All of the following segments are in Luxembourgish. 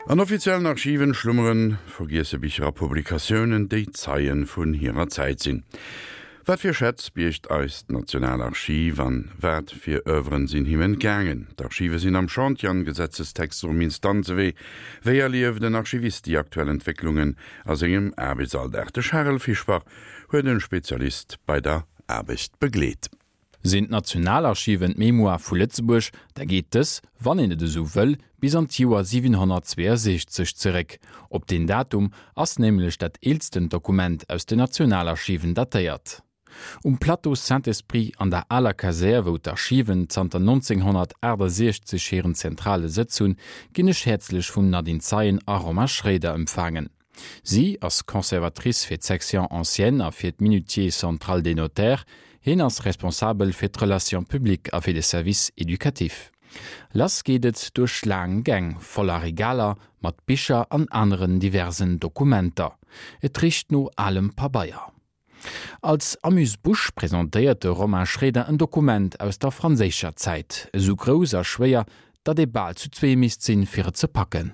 An offiziellen Archiven schlummeren vergiesse Bicher a Publikatiounen, déi Zeien vun hirer Zäit sinn. Wat fir Schätz biergt eist Nationalarchiv an wat fir Oeuvren sinn him entgaangen? D'Archive sinn am Chantier an Gesetzestexter um Instanzewee. Wéi erlieft en Archivist déi aktuell Entwécklungen a sengem Aarbechtsalldag? De Charel Fischbach huet en Spezialist bei der Aarbecht begleet. Sinn d'Nationalarchiven d'Mémoire vu Lëtzebuerg, da geet dës, wann een et esou wëll, bis an d'Joer 762 zeréck. Op deen Datum ass nämlech dat eelstent Dokument aus den Nationalarchiven datéiert. Um Plateau Saint-Esprit an der aler Kasär, wou d'Archiven zanter 1968 hiren zentrale Sëtz hunn, ginn ech häerzlech vum Nadine Zeien a Romain Schroeder empfaangen. Si ass Conservatrice fir d'Section ancienne a fir d'Minutier central des notaires, hien ass responsabel fir d'Relations publiques a fir de Service éducatif. Lass geet et duerch laang Gäng voller Regaler mat Bicher an aneren diversen Dokumenter. Et richt no alem Pabeier. Als Amuse-bouche presentéiert de Romain Schroeder en Dokument aus der franséischer Zäit, esou grouss a schwéier, datt ee bal zu zwee misst sinn, fir et ze packen.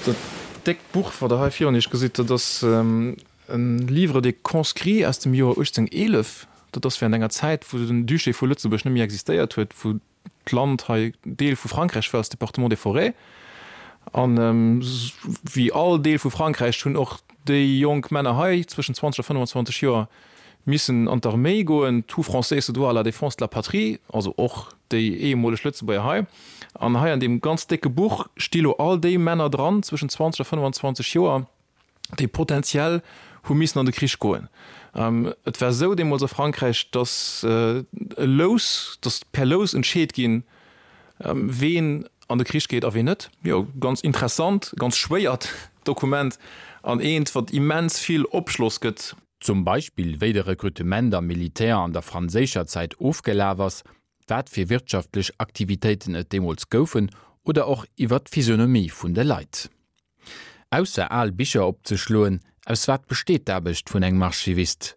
Dat déckt Buch, wat Der hei virun Iech gesitt, dat ass e Livre des conscrits aus dem Joer 1811. Dat ass während enger Zäit, wou den Duché vu Lëtzebuerg net méi existéiert huet, wou d'Land hei Deel vu Frankräich war, als Département des Forêts. An wéi all Deel vu Frankräich hunn och déi jonk Männer hei zwëschen 20 a 25 Joer missen an d'Arméi goen. Tout Français se doit à la défense de la patrie, also och déi ehemoleg Lëtzebuerger hei. An hei an deem ganz décke Buch sti lo all déi Männer dran zwëschen 20 a 25 Joer, déi potentiell hu missen an de Krich goen. Et war esou deemools a Frankräich, datt e Lous, datt per Lous entscheet ginn, ween an de Krich geet a ween net. Jo, ganz interessant, ganz schwéiert Dokument an eent, wat immens vill Opschloss gëtt. Zum Beispill wéi de Rekrutement am Militär an der franséischer Zäit ofgelaf ass, wat fir wirtschaftlech Aktivitéiten et deemools goufen oder och iwwer d'Physionomie vun de Leit. Ausser al Bicher opzeschloen, aus wat besteet d'Aarbecht vun engem Archivist?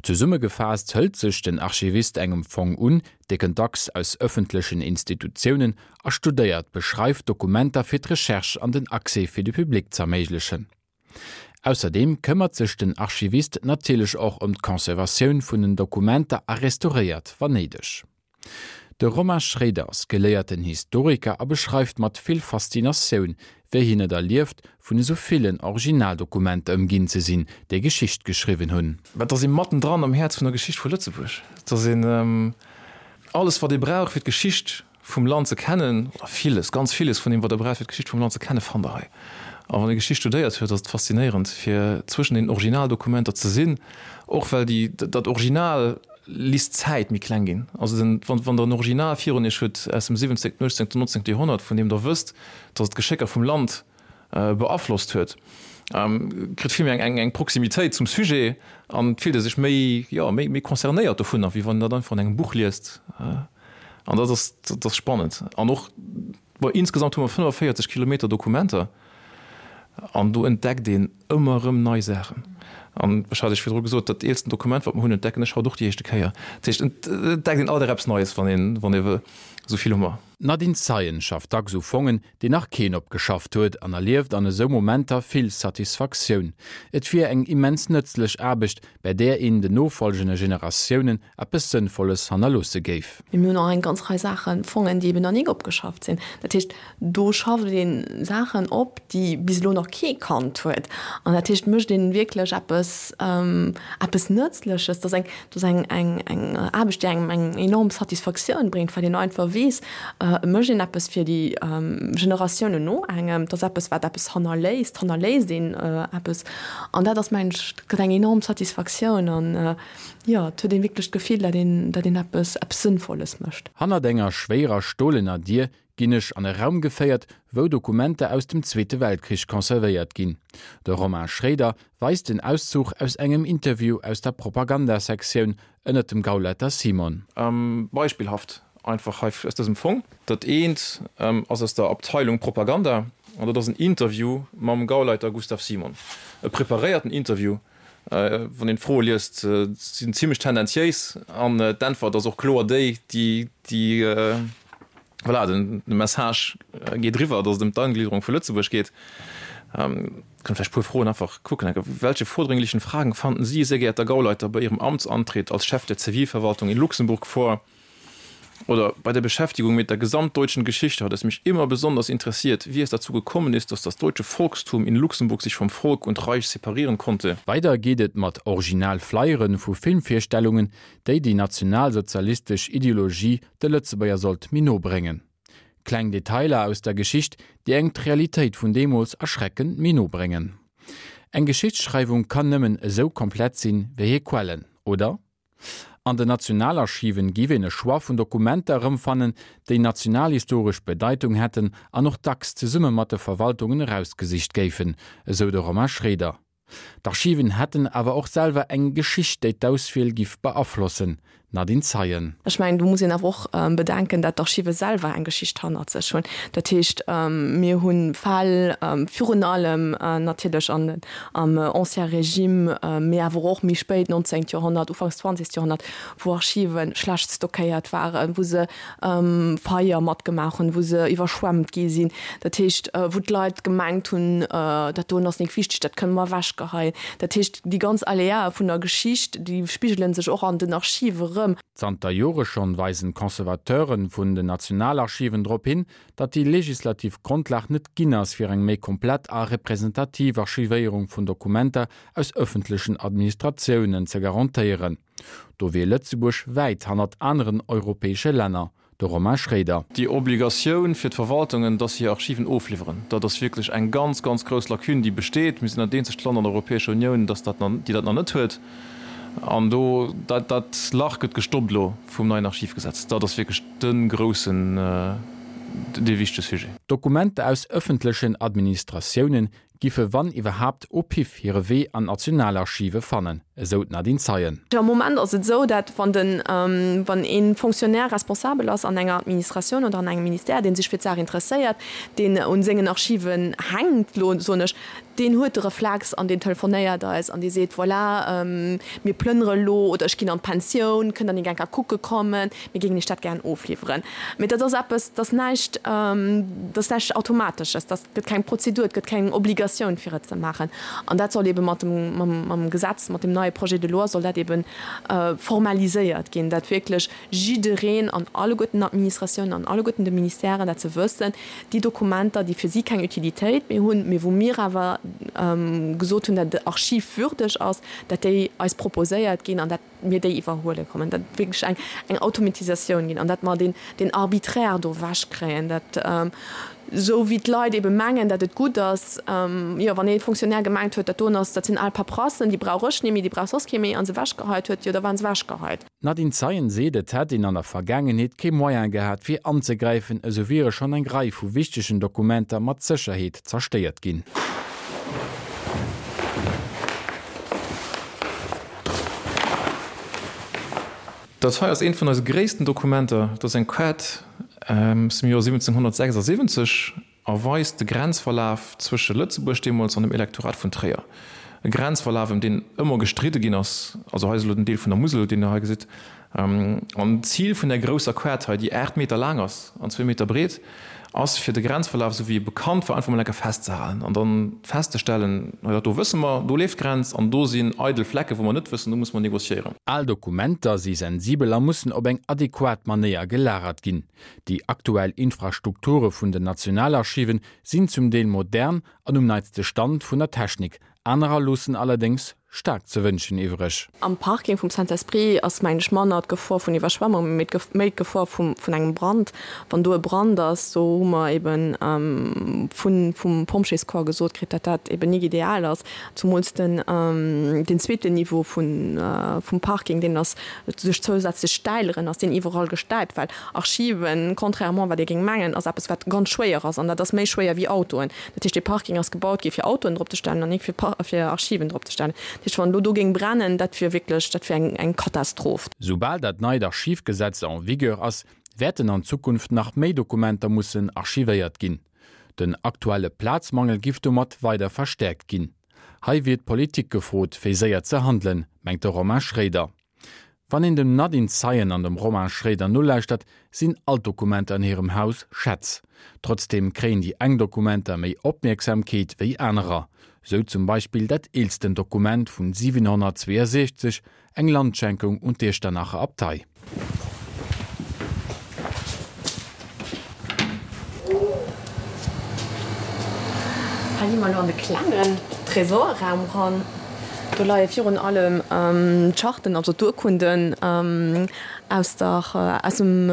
Zesummegefaasst hëlt sech den Archivist engem Fong un, dee kënnt dacks aus ëffentlechen Institutiounen, a studéiert, beschreift Dokumenter fir d'Recherche an den Accès fir de Public z'erméiglechen. Ausserdeem këmmert sech den Archivist natierlech och ëm d'Conservatioun vun den Dokumenter a restauréiert, wann néideg. De Romain Schroeder ass geléierten Historiker a beschreift mat vill Faszinatioun, wéi hien et erlieft, vun esou villen Originaldokumenter ëmginn ze sinn, déi Geschicht geschriwwen hunn. Mä et ass ee mattendran am Häerz vun der Geschicht vu Lëtzebuerg. Et ass een alles, wat ee brauch, fir d'Geschicht vum Land ze kennen, oder villes, ganz villes vun deem, wat Der braucht, fir d'Geschicht vum Land ze kennen, fannt Der hei. A wann ee Geschicht studéiert huet, ass et faszinéierend, fir zwëschen den Originaldokumenter ze sinn, och well déi, dat Original Lisst d'Zäit méi kleng ginn. Also den, wann, wann Der en Original virun Iech hutt aus dem 17., 18., 19. Joerhonnert, vun deem Der wësst, datt et d'Geschécker vum Land beaflosst huet, kritt vill méi eng, eng, eng Proximitéit zum Sujet an et fillt ee sech méi, jo, méi, méi concernéiert dovunner, wéi wann een dat einfach an engem Buch liest. An dat ass, dat ass spannend. An och, bon, insgesamt hu mer 45 Kilometer Dokumenter an do entdeckt een ëmmer erëm nei Saachen. An ech hat Iech virdru gesot, dat eelsten Dokument, wat mer hunn, entdecken ech haut och déi éischte Kéier. Dat heescht, et entdeckt een alt erëm eppes Neies, wann een, wann ee wëll. Esou vill hu mer. D'Nadine Zeien schafft dacks u Fongen, déi nach keen opgeschafft huet an erlieft an esou Momenter vill Satisfaktioun. Et wier eng immens nëtzlech Aarbecht, bäi där een den nofolgende Generatiounen eppes Sënnvolles hannerloosse géif. Mee mir hunn och eng ganz Rei Saachen, Fongen, déi eben nach nik opgeschafft sinn. Dat heescht, do schafft ee Saachen op, déi bis elo nach kee kannt huet. An dat heescht, mécht ee wierklech eppes, eppes Nëtzleches. Dat ass eng, dat ass eng, eng, eng Aarbecht, déi engem eng enorm Satisfaktioun bréngt, well een einfach weess, et mécht een eppes fir déi Generatiounen no engem. Dat ass eppes, wat eppes hannerléisst, hannerléisst een eppes. An dat ass, mengen ech, dat gëtt eng enorm Satisfaktioun. An Jo, et huet een wierklech d'Gefill, dat een, dat een eppes, eppes Sënnvolles mécht. Hannert enger schwéierer stolener Dier ginn ech an e Raum geféiert, wou Dokumenter aus dem Zweete Weltkrich conservéiert ginn. De Romain Schroeder weist en Auszuch aus engem Interview aus der Propagandasektioun ënnert dem Gauleiter Simon. Beispillhaft einfach hei aus dësem Fong. Dat eent ass aus der Abteilung Propaganda an dat ass en Interview mam Gauleiter Gustav Simon, e preparéierten Interview. Wann een d'Froe liest, sinn zimlech tendenziéis an d'Äntwert ass och kloer déi, déi, déi, voilà, den Message geet eriwwer, datt et ëm d'Eingliederung vu Lëtzebuerg geet. Kënnt vläicht e puer Froen einfach kucken. Welche vordringlichen Fragen fanden Sie, sehr geehrter Gauleiter, bei Ihrem Amtsantritt als Chef der Zivilverwaltung in Luxemburg vor? Oder bei der Beschäftigung mit der gesamtdeutschen Geschichte hat es mich immer besonders interessiert, wie es dazu gekommen ist, dass das deutsche Volkstum in Luxemburg sich vom Volk und Reich separieren konnte. Weider geet et mat original Flyere vu Filmvirstellungen, déi déi nationalsozialistesch Ideologie de Lëtzebuerger sollt méi no bréngen. Kleng Detailer aus der Geschicht, déi engem d'Realitéit vun deemools erschreckend méi no bréngen. Eng Geschichtsschreiwung kann nëmmen esou komplett sinn, wéi hir Quellen, oder? An den Nationalarchiven giff een e Choix vun Dokumenter erëmfannen, déi nationalhistoresch Bedeitung hätten an och dacks zesumme mat de Verwaltungen erausgesicht géifen, esou de Romain Schroeder. D'Archiven hätten awer och selwer eng Geschicht, déi d'Auswiel giff beaflossen. Nadine Zeien. Ech mengen, do muss een awer och bedenken, dat d'Archive selwer eng Geschicht hannert sech hunn. Dat heescht, mir hu Fäll, virun allem natierlech an am Ancien Régime, mee awer och méi spéit, 19. Joerhonnert, ufanks 20. Joerhonnert, wou Archive schlecht stockéiert waren, wou se Feier matgemaach hunn, wou se iwwerschwemmt gi sinn. Dat heescht, wou d'Leit gemengt hunn, dat doen ass nik wichteg, dat kënne mer ewechgeheien. Dat heescht, déi ganz Aléae vun der Geschicht, déi spigele sech och an den Archive erëm. Zanter Jore schonn weisen d'Conservateure vun den Nationalarchiven drop hin, datt déi legislativ Grondlag net ginn ass fir eng méi komplett a representativ Archivéierung vun Dokumenter aus ëffentlechen Administratiounen ze garantéieren. Do wier Lëtzebuerg wäit hannert aneren europäesche Länner. De Romain Schroeder. Déi Obligatioun fir d'Verwaltungen, dass se hir Archiven ofliwweren, dat ass wierklech eng ganz, ganz grouss Lacune, déi besteet. Mir sinn dat eenzegt Land an der Europäescher Unioun, dass dat, déi dat nach net huet. An do, dat, dat Lach gëtt gestoppt elo vum neien Archivgesetz. Dat ass wierklech de groussen, dee wichtege Sujet. Dokumenter aus ëffentlechen Administratiounen giffe wann iwwerhaapt au pif hire Wee an d'Nationalarchive fannen, esou d'Nadine Zeien. Am Moment ass et esou, dat wann den, wann ee Fonctionnaire responsabel ass an enger Administratioun oder an engem Ministère, dee sech fir d'Saach interesséiert, deen un sengen Archiven hänkt, elo soen ech, deen huet de Reflex an deen telefonéiert eis an dee seet, voilà, mir plënnere elo oder ech ginn an d'Pensioun, kënnt Der nik eng Kéier kucke kommen, mir géingen Iech dat gären ofliwweren. Mee dat ass eppes, dat ass näischt, dat ass näischt Automatesches, dat gëtt keng Prozedur, et gëtt keng Obligatioun fir et ze maachen. An dat soll eebe mat dem, mam Gesetz, mat dem neie Projet de loi soll dat eebe formaliséiert ginn, dat wierklech jiddereen an alleguerten Administratiounen, an alleguerten de Ministèren dat se wëssen, déi Dokumenter, déi fir si keng Utilitéit méi hunn, mee wou mir awer gesot hunn, dat et archivwürdeg ass, dat déi eis proposéiert ginn an dat mir déi iwwerhuele kommen, dat et wierklech eng eng Automatisatioun ginn an dat mer deen deen Arbitraire do ewechkréien, dat esou wéi d'Leit ebe mengen, dat et gutt ass, jo wann ee Fonctionnaire gemengt huet, dat doen ass, dat sinn al Paperassen, déi brauch ech net méi, déi brauch soss kee méi, a se ewechgeheit huet, jo da waren se ewechgeheit. D'Nadine Zeien seet, et hätt een an der Vergaangenheet kee Moyen gehat fir anzegräifen, esou wiere schonn eng Rei vu wichtegen Dokumenter mat Sécherheet zerstéiert ginn. Dat hei ass eent vun eise gréissten Dokumenter. Dat ass eng Kaart aus dem Joer 1776 a weist de Grenzverlaf zwësche Lëtzebuerg deemools an dem Elektorat vun Tréier. E Grenzverlaf, ëm deen ëmmer gestridde ginn ass. Also hei ass elo den Deel vun der Musel, deen Der hei gesitt. An d'Zil vun där grousser Kaart hei, déi 8 Meter laang ass an zwee Meter breet, ass fir de Grenzverlaf, esou wéi e bekannt war, einfach mol eng Kéier festzehalen an dann festzestellen, hei dat do wësse mer, do leeft d'Grenz an do sinn eidel Flecke wou mer net wëssen, do musse mer négociéieren. Al Dokumenter si sensibel a mussen op eng adequat Manéier gelagert ginn. Déi aktuell Infrastrukture vun den Nationalarchiven sinn zum Deel modern an um neitste Stand vun der Technik, anerer loossen allerdéngs staark ze wënschen iwwreg. Am Parking vum Saint-Esprit ass, mengen ech, manner d'Gefor vun Iwwerschwemmung, mee méi d'Gefor vum, vun engem Brand. Wann do e Brand ass, do hu mer eben vun, vum Pompjeescorps gesot kritt, datt dat eben nik ideal ass. Zumools den, deen zweeten Niveau vun, vum Parking, deen ass duerch zousätzlech Stäileren ass deen iwwerall gestäipt, well Archiven, contrairement wat ee géing mengen, ass eppes wat ganz schwéier ass an dat ass méi schwéier wéi Autoen. Dat heescht, dee Parking ass gebaut gi fir Autoen drop ze stellen an nik fir fir Archiven drop ze stellen. Dat heescht, wann elo do géing brennen, dat wier wierklech, dat wier eng eng Katastroph. Soubal dat neit Archivgesetz en vigueur ass, wäerten an Zukunft nach méi Dokumenter mussen archivéiert ginn. Den aktuelle Plazmangel giff domat weider verstäerkt ginn. Hei wier d'Politik gefrot, fir séier ze handelen, mengt de Romain Schroeder. Wann een dem Nadine Zeien an dem Romain Schroeder nolauschtert, sinn all d'Dokumenter an hirem Haus Schätz. Trotzdeem kréien déi eng Dokumenter méi Opmierksamkeet wéi anerer. Sou zum Beispill dat eelsten Dokument vun 762, Eng Landschenkung un d'Iechternacher Abtei. Hei gi mer elo an de klengen Tresorraum ran. Do leie virun allem d'Charten, also d'Urkunden aus der, aus dem,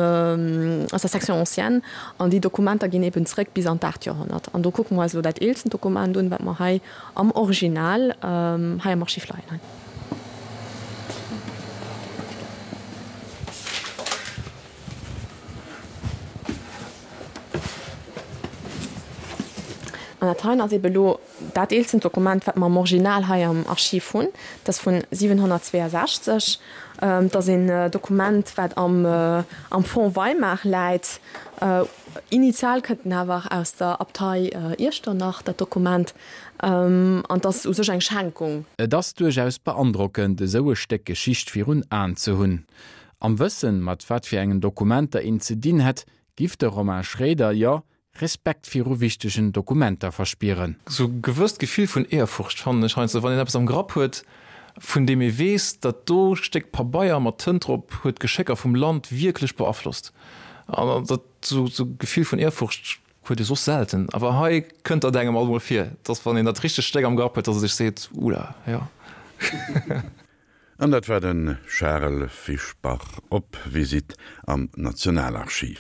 aus der Section ancienne. An déi Dokumenter ginn eben zréck bis an d'aacht Joerhonnert. An do kucke mer eis elo dat eelsten Dokument un, wat mer hei am Original hei am Archiv leien hunn. An dat heien ass ebe lo dat eelsten Dokument, wat mer am Original hei am Archiv hunn. Dat ass vun 762. Dat ass een Dokument, wat am am Fonds Weimar läit. Initial kënnt en awer aus der Abtei Iechternach, dat Dokument. An et ass u sech eng Schenkung. Et ass duerchaus beandrockend, esou e Stéck Geschicht virun Aen ze hunn. Am Wëssen, mat wat fir engen Dokumenter een ze dinn hätt, giff de Romain Schroeder, jo, Respekt viru wichtegen Dokumenter verspieren. Sou e gewësst Gefill vun Ehrfurcht fannen ech heiansdo, wann een eppes am Grapp huet, vun deem ee weess, dat do Stéck Pabeier mat Tënt drop huet d'Geschécker vum Land wierklech beaflosst. An dat sou Gefill vun Ehrfurcht huet ee soss selten, awer hei kënnt dat engem alt mol vir, dass wann een dat richtegt Stéck am Grapp huet, dass e sech seet, Ula, jo. An dat war de Charel Fischbach op Visitt am Nationalarchiv.